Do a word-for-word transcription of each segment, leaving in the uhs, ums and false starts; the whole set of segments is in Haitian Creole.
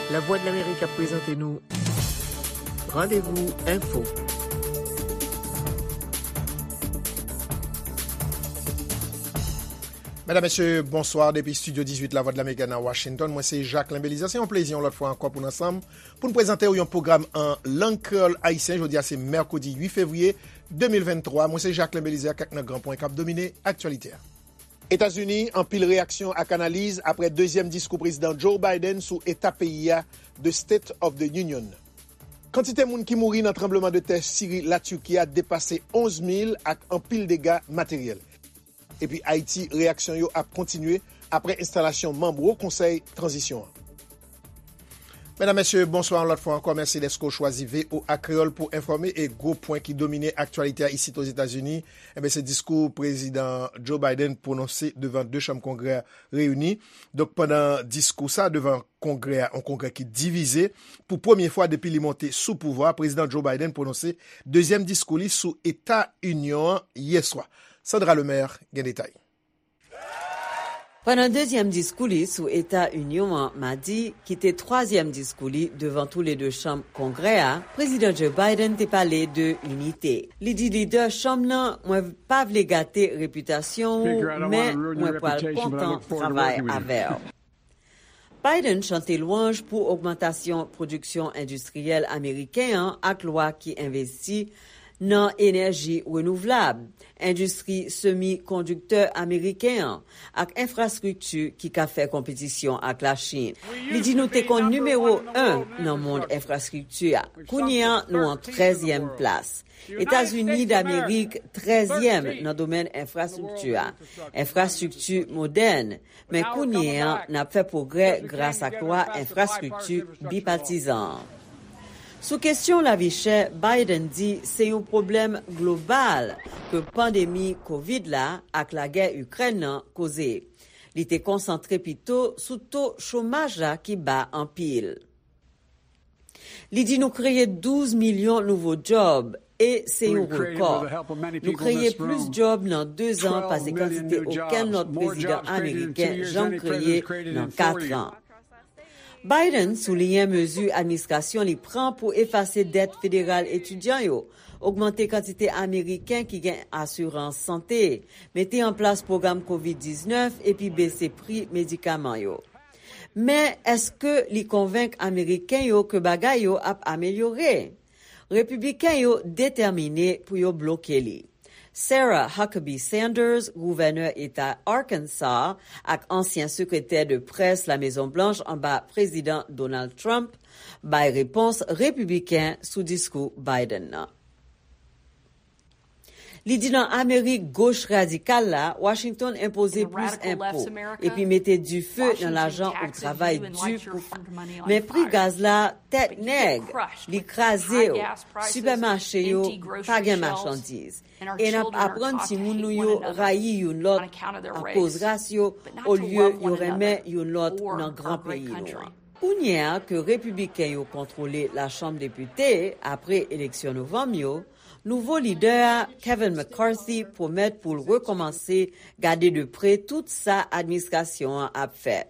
Lavwadlamerik ap prezante nou Randevou Enfo. Medam, mesye, bonswa depi estidyo dizuit Lavwadlamerik nan Washington. Mwen se Jacquelin Belizaire. Se yon plezi yon lòt fwa ankò pou n ansanm pou n prezante w yon pwogram an lang kreyòl ayisyen. Jodi a se mèkredi uit fevriye de mil venntwa. Mwen se Jacquelin Belizaire ak kèk nan gran pwen k ap domine aktyalite a. Etazini, anpil reyaksyon ak analiz apre dezyèm diskou Prezidan Joe Biden sou eta peyi a, The State of the Union. Kantite moun ki mouri nan tranblemanntè Siri, Latiki a depase onz mil ak anpil dega materyèl. Epi Ayiti, reyaksyon yo ap kontinye apre enstalasyon manm Wo Konsèy Tranzisyon an. Medam, mesye, bonswa yon lòt fwa ankò. Mèsi dèske w chwazi V O A Kreyòl pou enfòme e gwo pwen ki domine aktyalite a isit Ozetazini, enben, se diskou Prezidan Joe Biden pwononse devan de chanm Kongrè a reyini. Donk, pandan diskou sa devan Kongrè a, yon Kongrè ki divize, pou premye fwa depi li monte sou pouvwa, Prezidan Joe Biden pwononse dezyèm diskou li sou Eta Inyon an yè swa. Sandra Lemaire gen detay. Pandan dezyèm diskou li sou Eta Inyon an madi, ki te twazyèm diskou li devan toulede chanm Kongrè a, Prezidan Joe Biden te pale de inite. Li di lidè chanm nan, "Mwen pa vle gate repitasyon ou, men mwen pral kontan travay avè w." Biden chante lwanj pou ogmantasyon pwodiksyon endistriyèl ameriken an ak lwa ki envesti nan enèji renouvlab, endistri semikondiktè ameriken an, ak enfrastrikti ki ka fè konpetisyon ak Lachin. Li di, "Nou te konn nimewo en nan mond enfrastrikti a. Kounye a, nou an trèzyèm plas. Etazini Damerik, trèzyèm nan domèn enfrastrikti a. Enfrastrikti modèn, men kounye a, n ap fè pwogrè gras ak lwa enfrastrikti bipatizan an." Sou kesyon lavi chè, Biden di se yon pwoblèm global ke pandemi kovid la ak lagè Ikrèn nan koze. Li te konsantre pito sou to chomaj la ki ba anpil. Li di, "Nou kreye douz milyon nouvo djòb e se yon rekò. Nou kreye plis djòb nan dezan pase kantite okenn lòt prezidan ameriken janm kreye nan katran." Biden souliyen mezi administrasyon li pran pou efase dèt federal etidyan yo, ogmante kantite ameriken ki gen asirans sante, mete an plas pwogram kovid diznèf epi bese pri medikaman yo. Men èske li konvenk Ameriken yo ke bagay yo ap amelyore? Repibliken yo detèmine pou yo bloke li. Sarah Huckabee Sanders, gouvènè eta Arkansas ak ansyen sekretè de près Lamezon Blanch anba Prezidan Donald Trump, bay repons repibliken sou diskou Biden nan. Li di nan Amerik goch radikal la, Washington enpoze plis enpo epi mete dife nan lajan ou travay di pou fè. Men pri gaz la tèt nèg, li kraze w, sipèmache yo pa gen machandiz. E n ap aprann timoun nou yo rayi youn lòt akoz ras yo, olye yo renmen youn lòt nan gran peyi nou an. Kounye a ke repibliken yo kontwole Lachanm Depite apre eleksyon novanm yo, nouvo lidè a, Kevin McCarthy, pwomèt pou l rekòmanse gade de pre tout sa administrasyon an ap fè.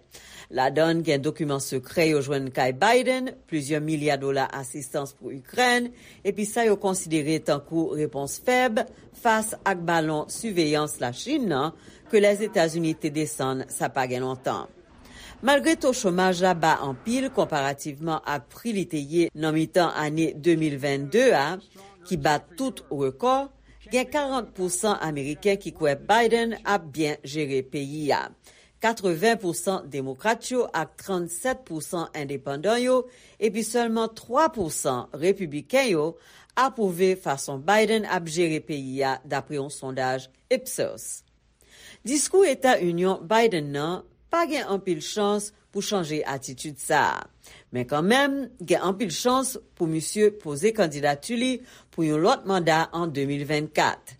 Ladan l gen dokiman sekrè yo jwenn kay Biden, plizyè milya dola asistans pou Ikrèn, epi sa yo konsidere tankou repons fèb fas ak balon siveyans Lachin nan ke Lèzetazini te desann sa pa gen lontan. Malgre to chomaj la ba anpil konparativman ak pri li te ye nan mitan ane de mil vennde a, ki bat tout rekò, gen karant pousan Ameriken ki kwè Biden ap byen jere peyi a. Katreven pousan Demokrat yo ak trannsèt pousan endepandan yo, epi sèlman twa pousan Repibliken yo apwouve fason Biden ap jere peyi a, dapre yon sondaj Ipsos. Diskou Eta Inyon Biden nan pa gen anpil chans pou chanje atitid sa a. Men kanmenm, gen anpil chans pou misye poze kandidati li pou yon lòt manda an de mil vennkat.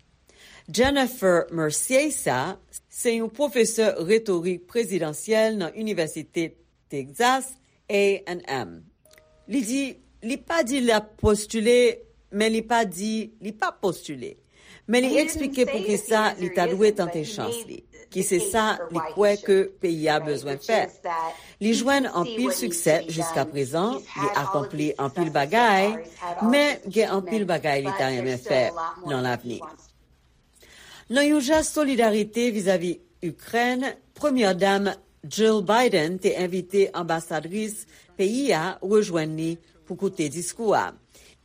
Jennifer Merciesa se yon pwofesè retorik prezidansyèl nan Inivèsite Texas A and M. Li di, li pa di l ap postile, men li pa di li p ap postile. Men li eksplike poukisa li ta dwe tante chans li. ki se sa li kwè ke peyi a bezwen fè. Li jwenn anpil siksè jiskaprezan, li akonpli anpil bagay, men gen anpil bagay li ta renmen fè nan lavni. Nan yon jès solidarite vizavi Ikrèn, Premyè Dam Jill Biden te envite anbasadris peyi a rejwenn li pou koute diskou a.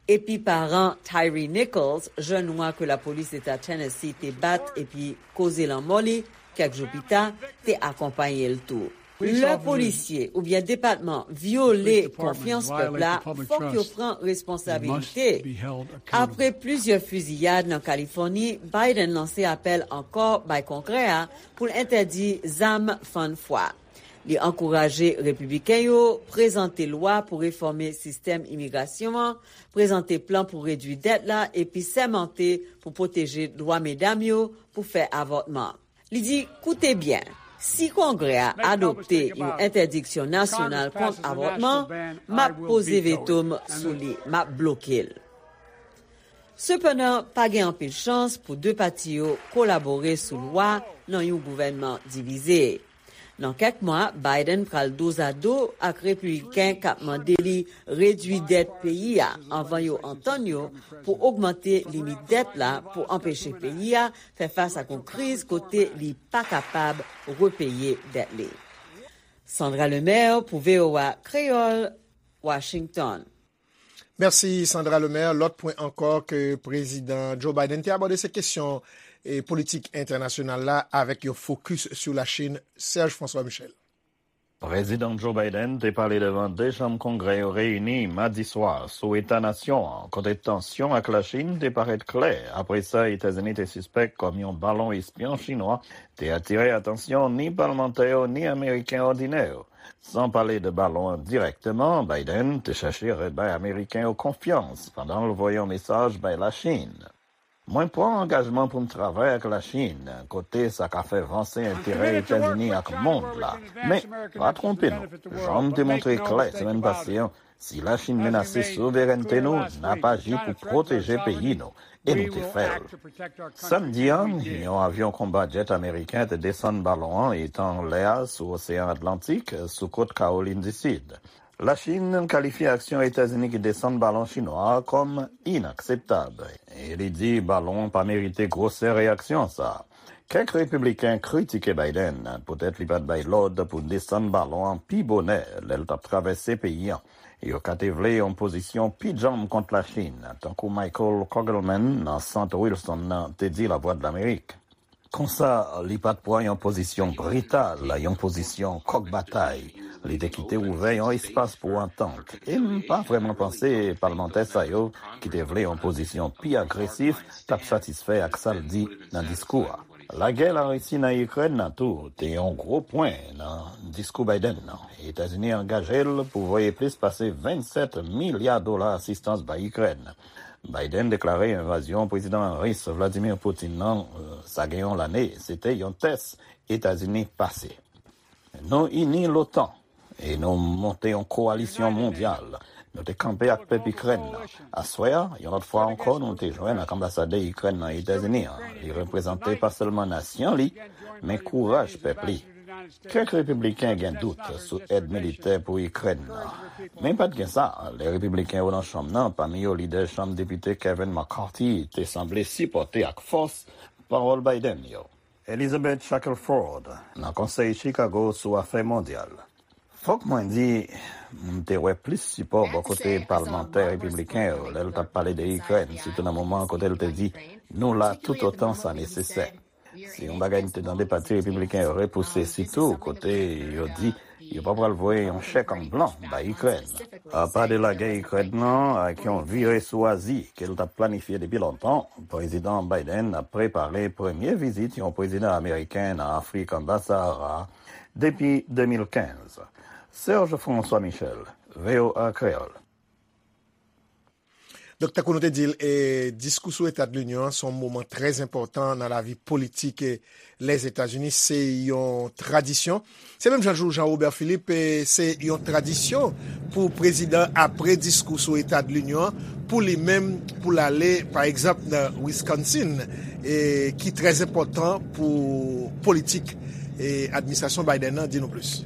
Epi paran Tyre Nichols, jèn nwa ke lapolis Eta Tennessee te bat epi koze lanmò li kèk jou pita, te akonpaye l tou. Lè polisye oubyen depatman vyole konfyans pèp la, fòk yo pran responsabilite. Apre plizyè fiziyad nan Kalifòni, Biden lanse apèl ankò bay Kongrè a pou l entèdi zam fann fwa. Li ankouraje Repibliken yo prezante lwa pou refòme sistèm imigrasyon an, prezante plan pou redui dèt la epi sèmante pou pwoteje dwa medam yo pou fè avòtman. Li di, koute byen, si Kongrè a adopte yon entèdiksyon nasyonal kont avòtman, m ap poze veto m sou li, m ap bloke l. Sepandan, pa gen anpil chans pou de pati yo kolabore sou lwa nan yon gouvènman divize. Nan kèk mwa, Biden pral dozado ak Repibliken k ap mande li redui dèt peyi a anvan yo antann yo pou ogmante limit dèt la pou anpeche peyi a fè fas ak yon kriz kote li pa kapab repeye dèt li. Sandra Lemaire pou V O A Kreyòl, Washington. Mèsi Sandra Lemaire. Lòt pwen ankò ke Prezidan Joe Biden te abòde se kesyon e politik entènasyonal la avèk yon fokis sou Lachin. Serge François Michel. Prezidan Joe Biden te pale devan de chanm Kongrè yo reyini madi swa sou eta nasyon an, kote tansyon ak Lachin te parèt klè apre sa Etazini te sispèk kòm yon balon espyon chinwa te atire atansyon ni palmantè yo ni Ameriken òdinè yo. San pale de balon an dirèkteman, Biden te chèche rebay Ameriken yo konfyans pandan l voye yon mesaj bay Lachin. Mwen pran angajman pou m travay ak Lachin, kote sa ka fè vanse enterè Etazini ak mond la. Men, pa twonpe nou, jan m te montre klè semèn pase an, si Lachin menase souverènte nou, n ap aji pou pwoteje peyi nou, e nou te fè l. Samdi an, yon avyon konba djèt ameriken te desann balon an etan anlè a sou Oseyan Atlantik, sou kot Kawolin di Sid. Lachin kalifye aksyon Etazini ki desann balon chinwa a kòm inakseptab, e li di balon an pa merite gwosè reyaksyon sa a. Kèk repibliken kritike Biden poutèt li pa t bay lòd pou desann balon an pi bonè lè l t ap travèse peyi an. Yo ka te vle yon pozisyon pi djanm kont Lachin, tankou Michael Kogelman nan Sant Wilson nan te di Lavwadlamerik. Konsa, li pa t pran yon pozisyon brital, yon pozisyon kòk batay. Li te kite ouvè yon espas pou antant. E m pa vrèman panse palmantè sa yo, ki te vle yon pozisyon pi agresif, t ap satisfè ak sa l di nan diskou a. Lagè Larisi nan Ikrèn nan tou te yon gwo pwen nan diskou Biden nan. Etazini angaje l pou voye plis pase vennsèt milya dola asistans bay Ikrèn. Biden deklare envazyon Prezidan Ris Vladimir Putin nan, sa gen yon lane, se te yon tès Etazini pase. Nou ini l'OTAN e nou monte yon kowalisyon mondyal. Nou te kanpe ak pèp Ikrèn nan. Aswè a, yon lòt fwa ankò, nou te jwenn ak anbasadè Ikrèn nan Etazini an. Li reprezante pa sèlman nasyon li, men kouraj pèp li. Kèk repibliken gen dout sou èd militè pou Ikrèn nan. Men pa t gen sa, lè repibliken yo nan chanm nan, pami yo lidè chanm depite Kevin McCarthy, te sanble sipòte ak fòs pawòl Biden yo. Elizabeth Shackelford, nan Konsèy Chicago sou Afè Mondyal. Fòk mwen di, m te wè plis sipò bò kote palmantè repibliken yo lè l t ap pale de Ikrèn, sitou nan moman kote l te di, nou la toutotan sa nesesè. Se yon bagay m te tande pati repibliken yo repouse, sitou kote yo di yo pa pral voye yon chèk an blan bay Ikrèn. Apa de lagè Ikrèn nan ak yon vire sou Azi ke l t ap planifye depi lontan, Prezidan Biden ap prepare premye vizit yon prezidan ameriken nan Afrik anba Sahara depi de mil kenz. Serge François Michel, V O A Kreyòl. Donk, tankou nou te di l, e, diskou sou Eta de Linyon an se yon moman trè enpòtan nan lavi politik, e, Lèzetazini. Se yon tradisyon. Se menm jan jou Jean Robert Philippe, e, se yon tradisyon pou prezidan, apre diskou sou Eta de Linyon an, pou li menm, pou l ale, pa egzanp, nan Wisconsin, e, ki trè enpòtan pou politik, e, administrasyon Biden nan. Di nou plis.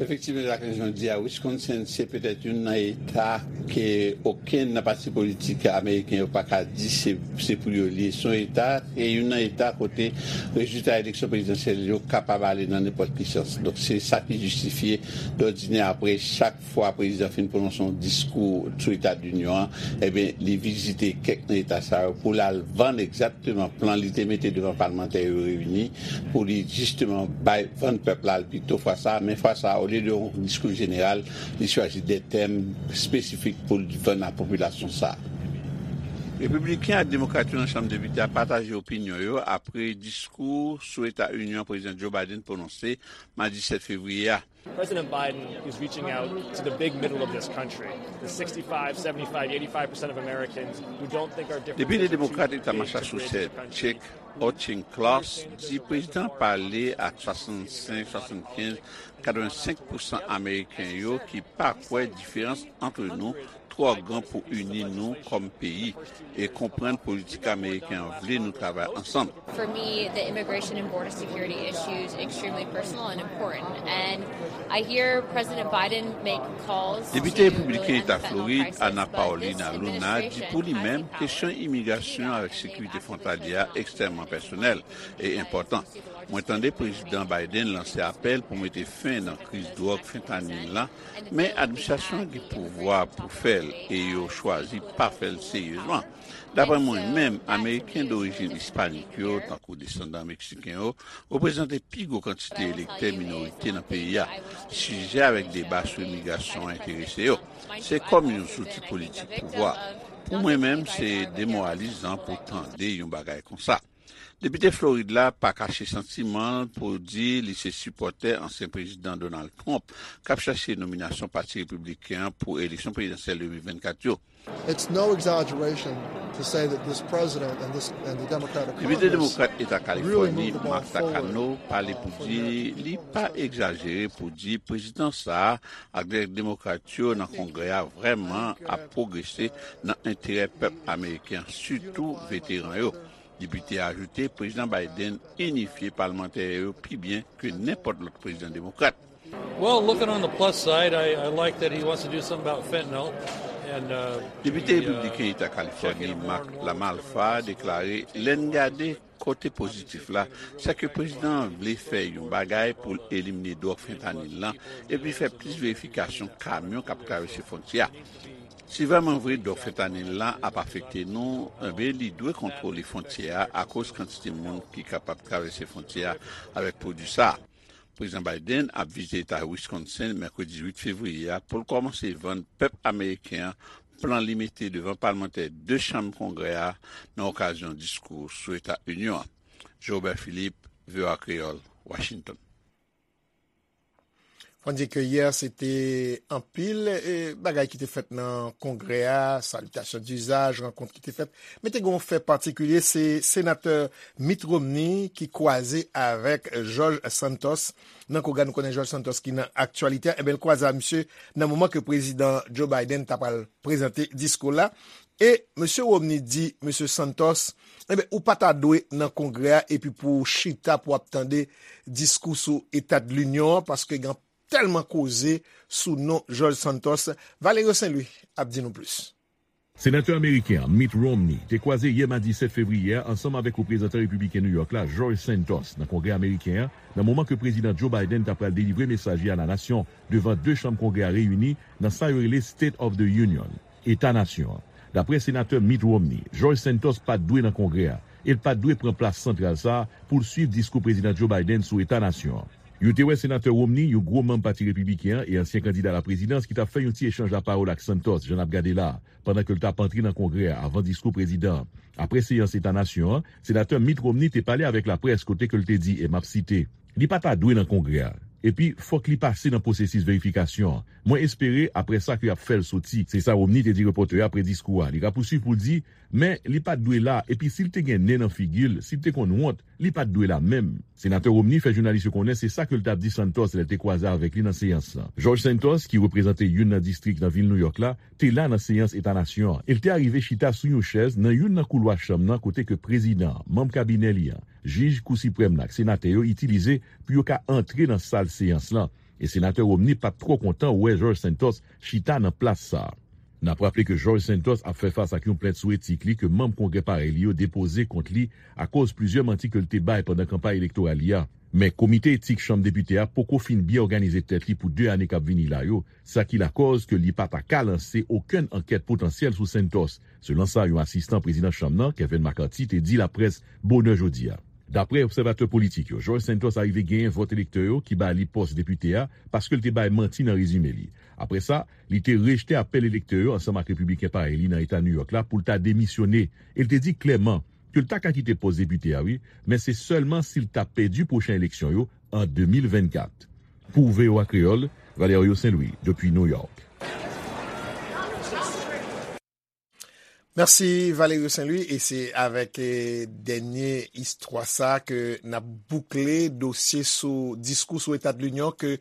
Efektivman, Jacqueline, jan w di a, Wisconsin se petèt youn nan eta ke okenn nan pati politik ameriken yo pa ka di se, se pou yo li ye. Se yon eta, e youn nan eta kote rezilta eleksyon prezidansyèl yo kapab ale nan nenpòt ki sans. Donk, se sa ki jistifye, dòdinè, apre chak fwa prezidan fin pwononse yon diskou sou Eta de Linyon an, ebyen, li vizite kèk nan eta sa yo pou l al vann egzakteman plan li te mete devan palmantè yo reyini pou li jisteman bay, vann pèp la l pito fwa sa a. Men fwa sa a, olye de yon diskou jeneral, li chwazi de tèm espesifik pou l vann a popilasyon sa a. Repibliken ak Demokrat yo nan Chanm Depite a pataje opinyon yo apre diskou sou Eta Inyon an Prezidan Joe Biden pwononse madi sèt fevriye a. President Biden is reaching out to the big middle of this country, the sixty-five, seventy-five, eighty-five percent of Americans who don't think our differences Depite Demokrat Eta Massachusetts, Chuck Auchincloss, di prezidan pale ak swasannsenk, swasannkenz, katrevensenk pousan Ameriken yo ki pa kwè diferans ant nou twò gran pou ini nou kòm peyi e konprann politik ameriken an vle nou travay ansanm. For me, the immigration and border security issue is extremely personal and important. And I hear President Biden make calls Depite repibliken Eta Florid, Ana Paulina Luna, di pou li menm, kesyon imigrasyon avèk sekirite fwontalyè a ekstrèmman pèsonèl e enpòtan. Mwen tande Prezidan Biden lanse apèl pou mete fen nan kriz dwòg fentanyl la, men administrasyon an gen pouvwa pou fè l e yo chwazi pa fè l seryezman. Dapre mwen menm, Ameriken dorijin ispanik yo, tankou desandan meksiken yo, reprezante pi gwo kantite elektè minorite nan peyi a. Sijè avèk deba sou imigrasyon an enterese yo. Se kòm yon zouti politik pouvwa. Pou mwen menm, se demoralizan pou tande yon bagay konsa. Depite Florid la pa kache santiman l pou di li se sipòtè ansyen prezidan Donald Trump k ap chache nominasyon Pati Repibliken an pou eleksyon prezidansyèl de mil vennkat yo. It's no exaggeration to say that this president and this and the Democratic Depite Demokrat Eta Kalifòni, Mark Takano, pale pou di li pa egzajere pou di prezidan sa a ak demokrat yo nan Kongrè a vrèman ap pwogrese nan enterè pèp ameriken an, sitou veteran yo. Depite a ajoute, Prezidan Biden inifye palmantè yo pi byen ke nenpòt lòt prezidan demokrat. Well, looking on the plus side, I, I like that he wants to do something about fentanyl. And, uh, Depite he, uh, repibliken Eta Kalifòni, Mark Lamalfa, deklare, lè n gade kote pozitif la, se ke prezidan an vle fè yon bagay pou l elimine dwòg fentanyl lan epi fè plis verifikasyon kamyon k ap travèse fwontyè a. Si vrèman vre dwòg fentanyl la ap afekte nou, enben, li dwe kontwole fwontyè a akoz kantite moun ki kapab travèse fwontyè a avèk pwodui sa a. Prezidan Biden ap vizite eta Wisconsin mèkredi uit fevriye a pou l kòmanse vann pèp ameriken an plan li mete devan palmantè de chanm Kongrè a nan okazyon diskou sou Eta Inyon an. Jobert Philippe, V O A Kreyòl, Washington. Fò n di ke yè, se te anpil, e, bagay ki te fèt nan Kongrè a, salitasyon dizaj, rankont ki te fèt. Men te gen yon fè patikilye, se senatè Mitt Romney ki kwaze avèk George Santos nan Kongrè a. Nou konnen George Santos ki nan aktyalite a. Enben, l kwaze a misye nan moman ke prezidan Joe Biden ta pral prezante diskou la. E mesye Romney di mesye Santos, enben, ou pa ta dwe nan Kongrè a epi pou w chita pou w ap tande diskou sou Eta de Linyon an, paske gen tèlman koze sou non George Santos. Valerio Saint Louis ap di nou plis. Senatè ameriken an, Mitt Romney, te kwaze yè madi sèt fevriye a ansanm avèk reprezantan repibliken New York la, George Santos, nan Kongrè ameriken an, nan moman ke prezidan Joe Biden ta pral delivre mesaj li a la nasyon devan de chanm Kongrè a reyini nan sa yo rele State of the Union, Eta Nasyon an. Dapre senatè Mitt Romney, George Santos pa t dwe nan Kongrè a, e l pa t dwe pran plas santral sa a pou l swiv diskou prezidan Joe Biden sou Eta Nasyon an. Yo te wè senatè Romney, yon gwo manm Pati Repibliken an e ansyen kandida laprezidans, ki t ap fè yon ti echanj lapawòl ak Santos, jan n ap gade la a, pandan ke l t ap antre nan Kongrè a avan diskou prezidan an. Apre seyans Eta Nasyon an, senatè Mitt Romney te pale avèk laprès kote ke l te di, e m ap site, li pa ta dwe nan Kongrè a. Epi, fòk li pase nan pwosesis verifikasyon an. Mwen espere, apre sa, ke y ap fè l soti. Se sa Romney te di repòtè yo apre diskou a. Li rapousuiv pou l di, men li pa t dwe la, epi si l te gen nen nan figi l, si l te konn wont, li pa t dwe la menm. Senatè Romney fè jounalis yo konnen se sa ke l t ap di Santos lè l te kwaze avèk li nan seyans lan. George Santos, ki reprezante youn nan distrik nan vil Nouyòk la, te la nan seyans Eta Nasyon an, e l te arive chita sou yon chèz nan youn nan koulwa chanm nan kote ke prezidan an, manm kabinè li an, jij Kou Siprèm nan ak senatè yo itilize pou yo ka antre nan sal seyans lan, e senatè Romney pa t twò kontan wè George Santos chita nan plas sa a. N ap raple ke George Santos ap fè fas ak yon plent sou etik li ke manm Kongrè parèy li yo depoze kont li akoz plizyè manti ke l te bay pandan kanpay elektoral li a. Men Komite Etik Chanm Depite a poko fin byen òganize tèt li pou de ane k ap vini la yo, sa ki lakòz ke li pa ta ka lanse okenn ankèt potansyèl sou Santos, selon sa yon asistan prezidan chanm nan, Kevin McCarthy, te di laprès bonè jodi a. Daprè obsèvatè politik yo, George Santos arive genyen vòt elektè yo ki ba li pòs depite a paske l te bay manti nan rezime li. Apre sa, li te rejte apèl elektè yo ansanm ak repibliken parèy li nan Eta Nouyòk la pou l ta demisyone, e l te di klèman ke l ta ka kite pòs depite a, wi, men se sèlman si l ta pèdi pwochen eleksyon yo an de mil vennkat. Pou V O A Kreyòl, Valerio Saint-Louis, depi Nouyòk. Mèsi Valerio Saint-Louis, e se avèk eh, dènye istwa sa ke n ap boukle dosye sou diskou sou Eta de Linyon ke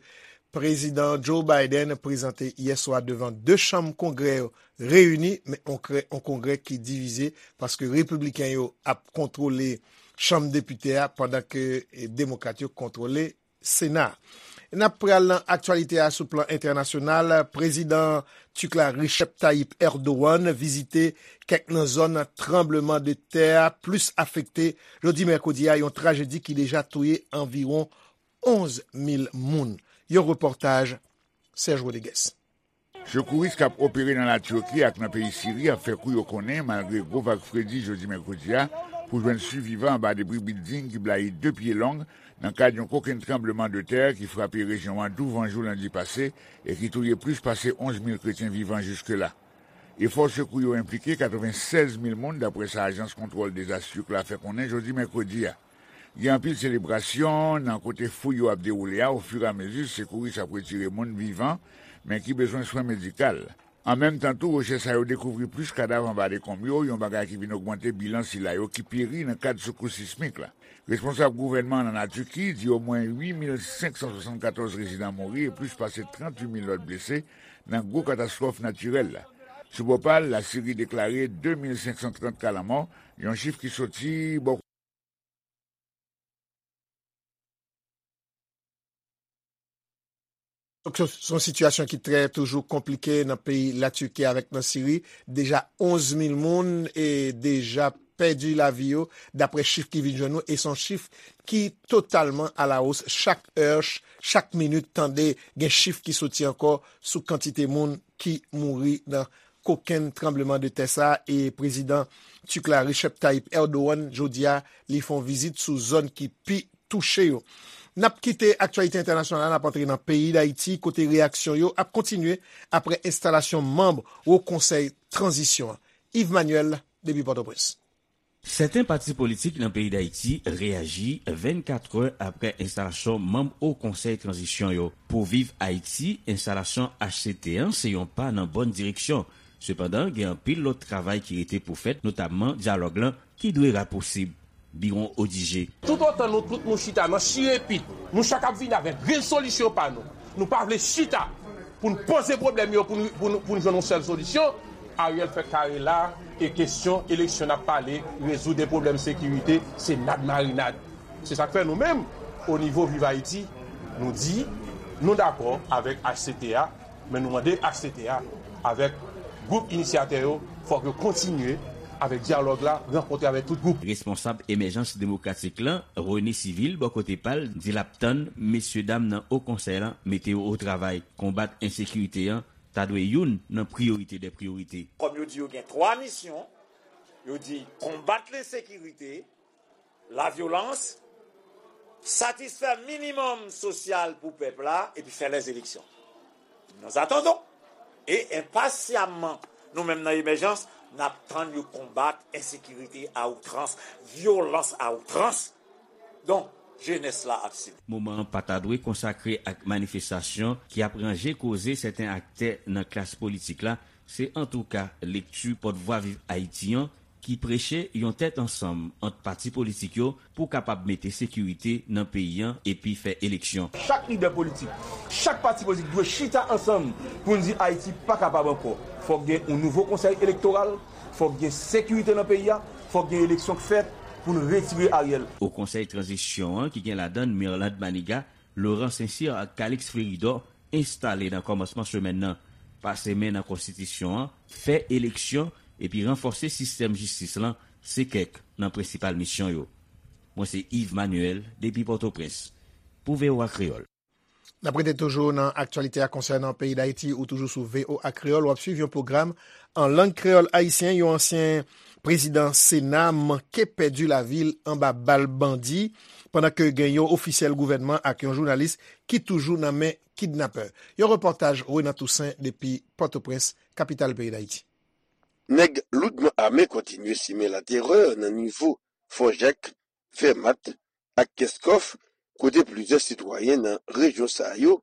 Prezidan Joe Biden prezante yè swa devan de chanm Kongrè yo reyini, men on krè- on Kongrè ki divize paske Repibliken yo ap kontwole Chanm Depite a pandan ke eh, Demokrat yo kontwole Sena. N ap pral nan aktyalite a sou plan entènasyonal. Prezidan Tik la Recep Tayyip Erdogan vizite kèk nan zòn tranbleman de tè a plis afekte jodi mèkredi a, yon trajedi ki deja touye anviwon onz mil moun. Yon repòtaj Serge Rodriguez. Sekouris k ap opere nan Latiki ak nan peyi Siri ap fè kou yo konnen, malgre gwo vag fredi jodi mèkredi a, pou jwenn sivivan anba debri bilding ki blayi de pye long nan kad yon kokenn tranbleman de tè ki frape rejyon an douvan jou lendi pase e ki touye plis pase onz mil kretyen vivan jiske la. Efò sekou yo enplike katrevennsèz mil moun, daprè sa ajans kontwòl dezas Tik la fè konnen jodi mèkredi a. Gen anpil selebrasyon nan kote fouy yo ap dewoule a ofiramezi sekouris ap retire moun vivan, men ki bezwen swen medikal. An menm tan tou, rechèch sa yo dekouvri plis kadav anba dekonm yo, yon bagay ki vin ogmante bilan sila yo ki peri nan kad sekous sismik la. Responsab gouvènman an nan Tiki di omwen uit mil senk san swasannkatòz rezidan mouri e plis pase tranntuit mil lòt blese nan gwo katastwòf natirèl la. Sou bò pa l, Lasiri deklare de mil senk san trant ka lanmò, yon chif ki soti bò Donk, se se yon sitiyasyon ki trè toujou konplike nan peyi Latiki avèk nan Siri. Deja onz mil moun e deja pèdi lavi yo, daprè chif ki vin jwenn nou, e se yon chif ki totalman alawos. Chak è, ch- chak minit, tande gen chif ki soti ankò sou kantite moun ki mouri nan kokenn tranbleman de tè sa a, e prezidan Tik la Recep Tayyip Erdogan jodi a, li fè yon vizit sou zòn ki pi touche yo. N ap kite aktyalite entènasyonal la, n ap antre nan peyi Dayiti, kote reyaksyon yo ap kontinye apre enstalasyon manm Wo Konsèy Tranzisyon an. Yves Manuel, depi Pòtoprens. Sèten pati politik nan peyi Dayiti reyaji vennkat è apre enstalasyon manm Wo Konsèy Tranzisyon yo. Pou Viv Ayiti, enstalasyon H C T an se yon pa nan bòn direksyon. Sepandan, gen anpil lòt travay ki rete pou fèt, notamman dyalòg lan ki dwe rapousib. Biwon Odigé. Toutotan nou tout nou chita nan chire pit, nou chak ap vini avèk rezolisyon pa nou. Nou pa vle chita pou n poze pwoblèm yo, pou n pou n pou n jwenn yon sèl solisyon. Ariel fè kare la, e kesyon eleksyon n ap pale, rezoud e pwoblèm sekirite, se nad marinad. Se sa k fè nou menm, o nivo Viv Ayiti, nou di, nou dakò avèk H C T a, men nou mande H C T a, avèk gwoup inisyatè yo, fòk yo kontinye avèk dyalòg la, rankontre avèk tout gwoup. Responsab Emèjans Demokratik lan, René Civil, bò kote pa l, di l ap tann mesyedam nan Wo Konsèy lan mete yo o travay. Konbat ensekirite an ta dwe youn nan priyorite dè priyorite. Kòm yo di yo gen twa misyon, yo di konbat lensekirite, lavyolans, satisfè minimòm sosyal pou pèp la, epi fè lèzeleksyon. Nous attendons. E enpasyamman, nou menm nan Emèjans, n ap tann yo konbat ensekirite a outrans, vyolans a outrans. Donk, jenès la ap sibi. Moman an pa ta dwe konsakre ak manifestasyon ki ap ranje koze sèten aktè nan klas politik la, se antouka lekti pòtvwa Viv Ayiti an ki preche yon tèt ansanm ant pati politik yo pou kapab mete sekirite nan peyi an epi fè eleksyon. Chak lidè politik, chak pati politik dwe chita ansanm pou n di Ayiti pa kapab ankò. Fòk gen yon nouvo konsèy elektoral, fòk gen sekirite nan peyi a, fòk gen eleksyon k fèt pou n retire Ariel. O konsèy tranzisyon an ki gen ladan n Mirlande Manigat, Laurent Saint-Cyr ak Calixte Fleuridor enstale nan kòmansman semèn nan. Pase men nan konstitisyon an, fè eleksyon epi ranfòse sistèm jistis lan se kèk nan prensipal misyon yo. Mwen se Yves Manuel depi Pòtoprens pou V O A Kreyòl. N ap rete toujou nan aktyalite a konsènan peyi Dayiti ou toujou sou V O A Kreyòl. W ap swiv yon pwogram an lang kreyòl ayisyen. Yon ansyen prezidan Sena manke pèdi lavi l anba bal bandi pandan ke gen yon ofisyèl gouvènman ak yon jounalis ki toujou nan men kidnapè. Yon repòtaj Renan Toussaint depi Pòtoprens, kapital peyi Dayiti. Nèg loudman ame kontinye simen laterè nan nivo Fò Jak, Fèmat ak Kèskòf, kote plizyè sitwayen nan rejyon sa yo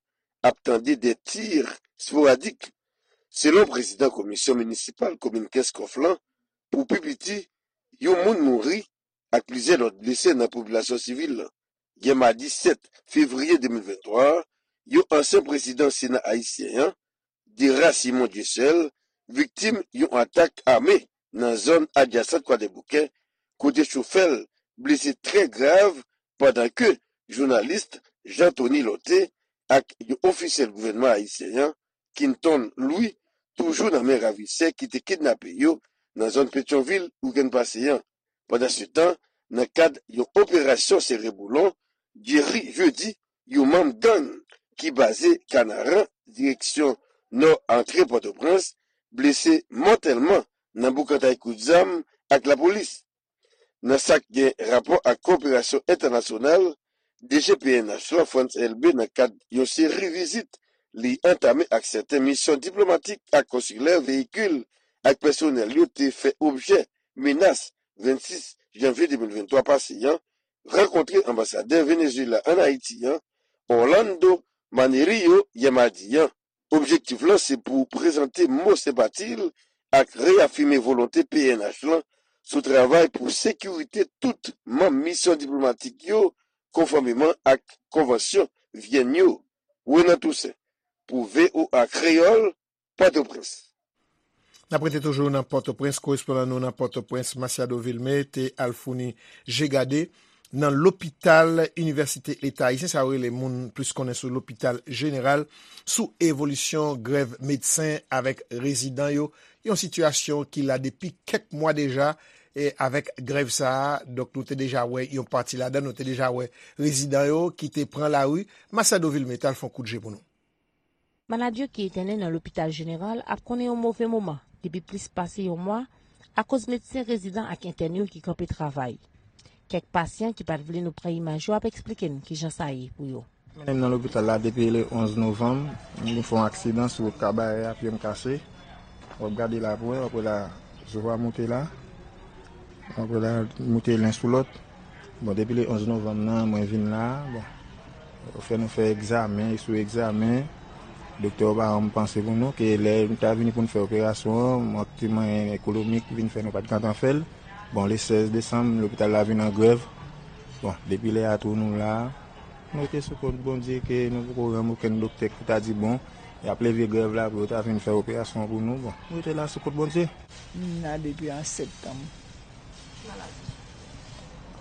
ap tande de tir sporadik. Selon prezidan komisyon minisipal komin Kèskòf lan, pou pi piti, yon moun mouri ak plizyè lòt blese nan popilasyon sivil lan. Yè madi sèt fevriye de mil venntwa a, yon ansyen prezidan Sena ayisyen an, Dera Simon Dieuseul, viktim yon atak ame nan zòn adjasan Kwadèboukè, kote chofè l blese trè grav pandan ke jounalis Jean Tony Lorthé ak yon ofisyèl gouvènman ayisyen an, Quinton Louis, toujou nan men ravisè ki te kidnape yo nan zòn Petyonvil wikenn pase an. Pandansetan, nan kad yon operasyon sere boulon, Jerry Jeudi, yon manm gang ki baze Kanaran, direksyon nò antre Pòtoprens, blese mòtèlman nan boukantay kout zam ak lapolis. Nan sa k gen rapò ak kowoperasyon entènasyonal, D G P N H lan, Frantz Elbé, nan kad yon seri vizit li antame ak sèten misyon diplomatik ak konsilè, veyikil ak pèsonèl yo te fè objè menas vennsis janvye de mil venntwa pase an, rankontre anbasadè Venezuela ann Ayiti an, Orlando Manerio, yè madi an. Objektif lan se pou prezante mo senpati l ak reyafime volonte P N H lan sou travay pou sekirite tout manm misyon diplomatik yo konfòmeman ak konvansyon Vyèn yo. Renan Toussaint pou V O A Kreyòl, Pòtoprens. N ap rete toujou nan Pòtoprens. Korespondan nou nan Pòtoprens, Masiado Vilmé, te al founi je gade nan lopital Inivèsite Leta Ayisyen, sa yo rele moun plis konnen sou lopital jeneral, sou evolisyon grèv medsen avèk rezidan yo, yon sitiyasyon ki la depi kèk mwa deja. E avèk grèv sa a, donk, nou te deja wè yon pati ladan, nou te deja wè rezidan yo ki te pran lari. Masiado Vilmé t al fè yon kout je pou nou. Malad yo ki entène nan lopital jeneral ap konnen yon move moman depi plis pase yon mwa akoz medsen rezidan ak entèn yo ki kanpe travay. Kèk pasyan ki pa t vle nou pran imaj yo ap eksplike n kijan sa ye pou yo. Mennen m nan lopital la depi le onz novanm. M vin fè yon aksidan sou wout Kabarè a, pye m kase. W ap gade la pou wè, w ap wè la, zo a moute la. W ap wè la, moute len sou lòt. Bon, depi le onz novanm nan, mwen vin la a, bon, yo fè nou fè egzamen sou egzamen. Doktè yo pa janm panse pou nou, ke lè nou ta vini pou n fè operasyon an, mank ti mwayen ekonomik vin fè nou pa t gentan fè l. Bon, le sèz desanm, lopital la vin an grèv. Bon, depi lè a tou nou la a. Nou rete sou kont Bondye ke nou poko rann okenn doktè ki ta di bon, y ap leve grèv la pou yo ta vin fè operasyon pou nou. Bon, nou rete la sou kont Bondye. M la depi an septanm.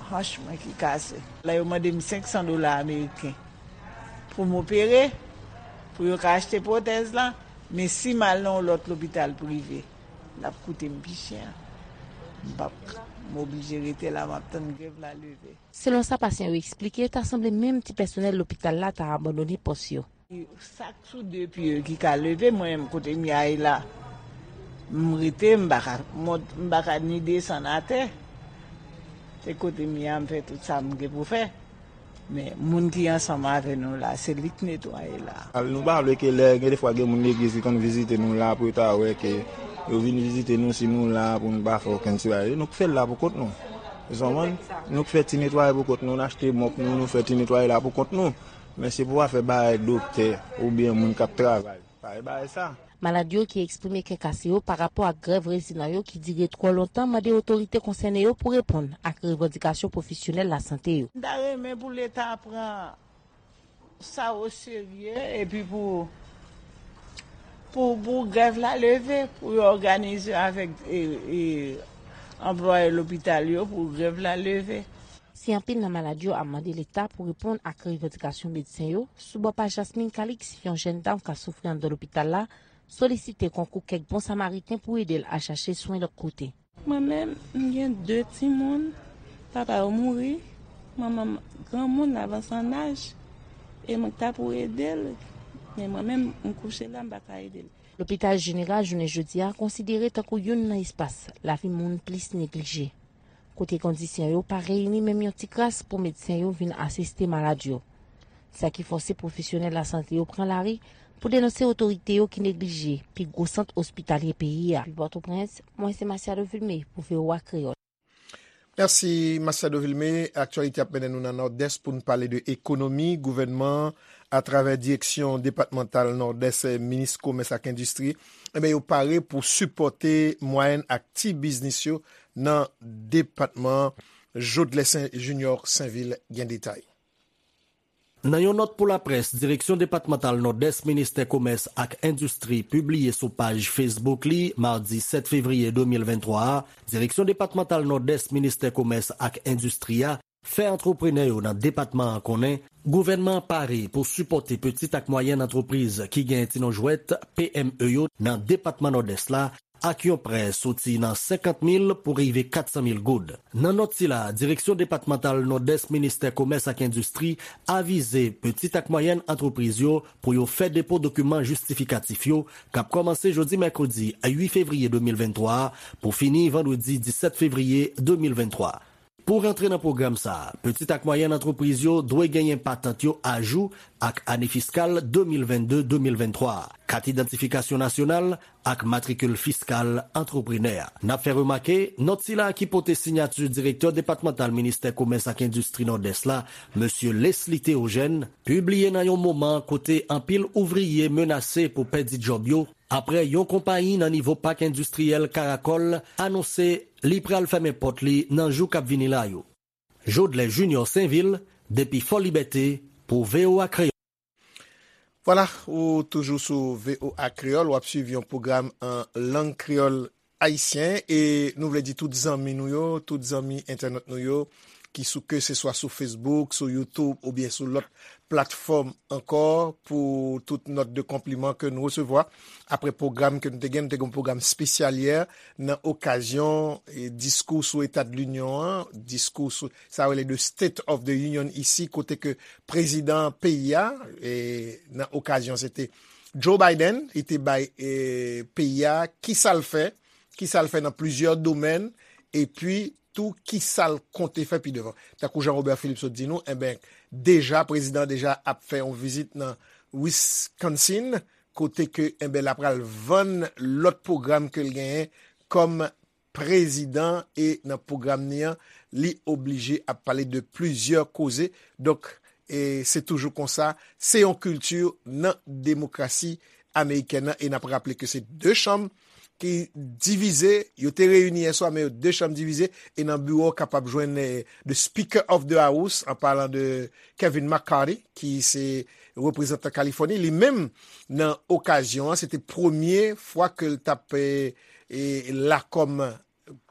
Hanch mwen ki kase. La yo mande m senk san dola ameriken pou m opere, pou yo ka achte pwotèz la, men si m al nan yon lòt lopital prive, l ap koute m pi chè. M p ap, m oblije rete la, m ap tann grèv la leve. Selon sa pasyan yo eksplike, ta sanble menm ti pèsonèl lopital la ta abandone pòs yo. Sa k sou de pye yo ki ka leve, mwen menm kote m ye a la, m rete, m pa ka mont, m pa ka ni desann atè. Se kote m ye a, m fè tout sa m gen pou fè. Men, moun ki ansanm avè nou la, se li k netwaye la. Nou pa vle ke lè, gen defwa gen moun legliz ki konn vizite nou la pou yo ta wè ke yo vin vizite nou, si nou la pou nou pa fè okenn ti bagay. Nou k fè l la pou kont nou. Zanmann, nou k fè ti netwaye pou kont nou, n achte mòp nou, nou fè ti netwaye la pou kont nou. Men se pou afè bagay doktè oubyen moun k ap travay. Pa e bagay sa. Malad yo ki eksprime kè kase yo pa rapò ak grèv rezidan yo ki dire twò lontan mande otorite konsène yo pou reponn ak revandikasyon pwofesyonèl lasante yo. M ta renmen pou Leta pran sa oserye epi pou, pou, pou grèv la leve, pou yo òganize avèk e, e, anplwaye lopital yo pou grèv la leve. Si anpil nan malad yo ap mande Leta pou reponn ak revandikasyon medsen yo, sou bò pa Jasmine Calix, yon jèn dam k ap soufri anndan lopital la, solisite konkou kèk bon samariten pou ede l al chache swen lòt kote. Mwen menm, m gen de timoun, papa yo mouri, manman m granmoun, l avanse an aj, e mwen k ta pou ede l, men mwen menm, m kouche la, m pa ka ede l. Lopital Jeneral jounen jodi a konsidere tankou youn nan espas lavi moun plis neglije, kote kondisyon yo pa reyini menm yon ti kras pou medsen yo vin asiste malad yo. Sa ki fòse pwofesyonèl lasante yo pran lari pou denonse otorite yo ki neglije pi gwo sant ospitalye peyi a. Depi Pòtoprens, mwen se Masiado Vilmé pou V O A Kreyòl. Mèsi, Masiado Vilmé. Aktyalite ap mennen nou nan Nòdès pou n pale de ekonomi. Gouvènman an, atravè Direksyon Depatmantal Nòdès, Minis Komès ak Endistri, enben, yo pare pou sipòte mwayèn ak ti biznis yo nan depatman an. Jodlè Sen, Junior Sainvil gen detay. Nan yon nòt pou laprès, Direksyon Depatmantal Nòdès Ministè Komès ak Endistri pibliye sou paj Facebook li madi sèt fevriye de mil venntwa a, Direksyon Depatmantal Nòdès Ministè Komès ak Endistri a fè antreprenè yo nan depatman an konnen gouvènman an pare pou sipòte pitit ak mwayèn antrepriz ki gen ti non jwèt, P M E, yo nan depatman Nòdès la ak yon prè soti nan senkant mil pou rive kat san mil goud. Nan nòt sila, Direksyon Depatmantal Nòdès Ministè Komès ak Endistri avize pitit ak mwayèn antrepriz yo pou yo fè depo dokiman jistifikatif yo k ap kòmanse jodi mèkredi uit fevriye de mil venntwa a pou fini vandredi disèt fevriye de mil venntwa. Pou rantre nan pwogram sa a, pitit ak mwayèn antrepriz yo dwe genyen patant yo ajou ak ane fiskal de mil vennde de mil venntwa a, kat idantifikasyon nasyonal ak matrikil fiskal antreprenè a. N ap fè remake, nòt sila ki pote siyati Direktè Depatmantal Ministè Komès ak Endistri Nòdès la, Mesye Leslie Théogène, pibliye nan yon moman kote anpil ouvriye menase pou pèdi djòb yo, apre yon konpayi nan nivo pak endistriyèl Karakòl anonse li pral fèmen pòt li nan jou k ap vini la yo. Jodlè Junior Sainvil, depi Fò Libète, pou V O A Kreyòl. Vwala, ou toujou sou V O A Kreyòl, w ap swiv yon pwogram an lang kreyòl ayisyen, e nou vle di tout zanmi nou yo, tout zanmi entènot nou yo, ki sou ke se swa sou Facebook, sou YouTube oubyen sou lòt platfòm ankò, pou tout nòt de konpliman ke nou resevwa apre pwogram ke nou te gen. Nou te gen yon pwogram espesyal yè nan okazyon, e, diskou sou Eta de Linyon an, diskou sou, sa rele de State of the Union isi, kote ke prezidan peyi a, e, nan okazyon se te Joe Biden, li te bay, e, peyi a kisa l fè, kisa l fè nan plizyè domèn, epi tou kisa l konte fè pi devan. Tankou Jean Robert Philippe sot di nou, enben, deja, prezidan deja ap fè yon vizit nan Wisconsin, kote ke, enben, l ap pral vann lòt pwogram ke l genyen kòm prezidan, e nan pwogram ni an, li oblije ap pale de plizyè koze. Donk, e se toujou konsa, se yon kilti nan demokrasi amerikèn nan, e n ap raple ke se de chanm ki divize, yo te reyini yè swa, men yo de chanm divize, e nan biwo w kapab jwenn, eh, the Speaker of the House, an palan de Kevin McCarthy, ki se reprezantan Kalifòni. Li menm, nan okazyon an, se te premye fwa ke l t ap, eh, eh, la kòm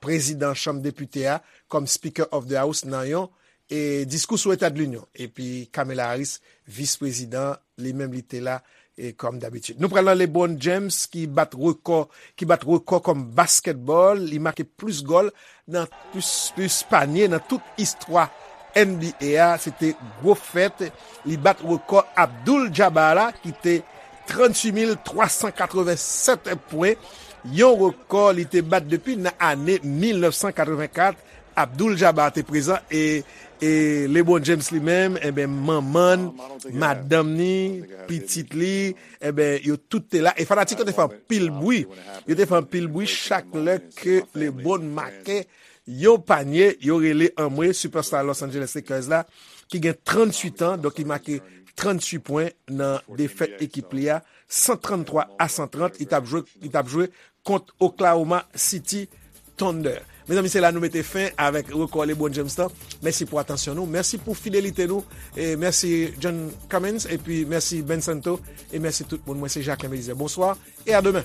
prezidan Chanm Depite a, kòm Speaker of the House nan yon, eh, diskou sou Eta de Linyon. Epi Kamala Harris, vis prezidan, li menm li te la, e kòm dabitid. Nou pral nan LeBron James ki bat rekò, ki bat rekò kòm baskètbòl, li make plis gòl nan plis, plis panye nan tout istwa N B A a, se te gwo fèt. Li bat rekò Abdul Jabbar la, ki te tranntuit mil twa san katrevennsèt pwen, yon rekò li te bat depi nan ane mil nèf san katrevenkat. Abdul Jabbar te prezan, e, e LeBron James li menm, enben, manman l, madanm ni, pitit li, enben, yo tout te la. E fanatik yo te fè anpil bri. Yo te fè anpil bri chak lè ke LeBron make yon panye, yo rele anmwe, superstar Los Angeles Lakers la, ki gen tranntuit an, donk li make tranntuit pwen nan defèt ekip li a, san tranntwa a san trant, li t ap jwe, li t ap jwe kont Oklahoma City Thunder. Mezanmi, se la nou mete fen avèk rekò LeBron James lan. Mèsi pou atansyon nou. Mèsi pou fidelite nou. E mèsi John Cummins. Epi mèsi Ben Santo. E mèsi tout moun. Mwen se Jacquelin Belizaire. Bonswa e a demen.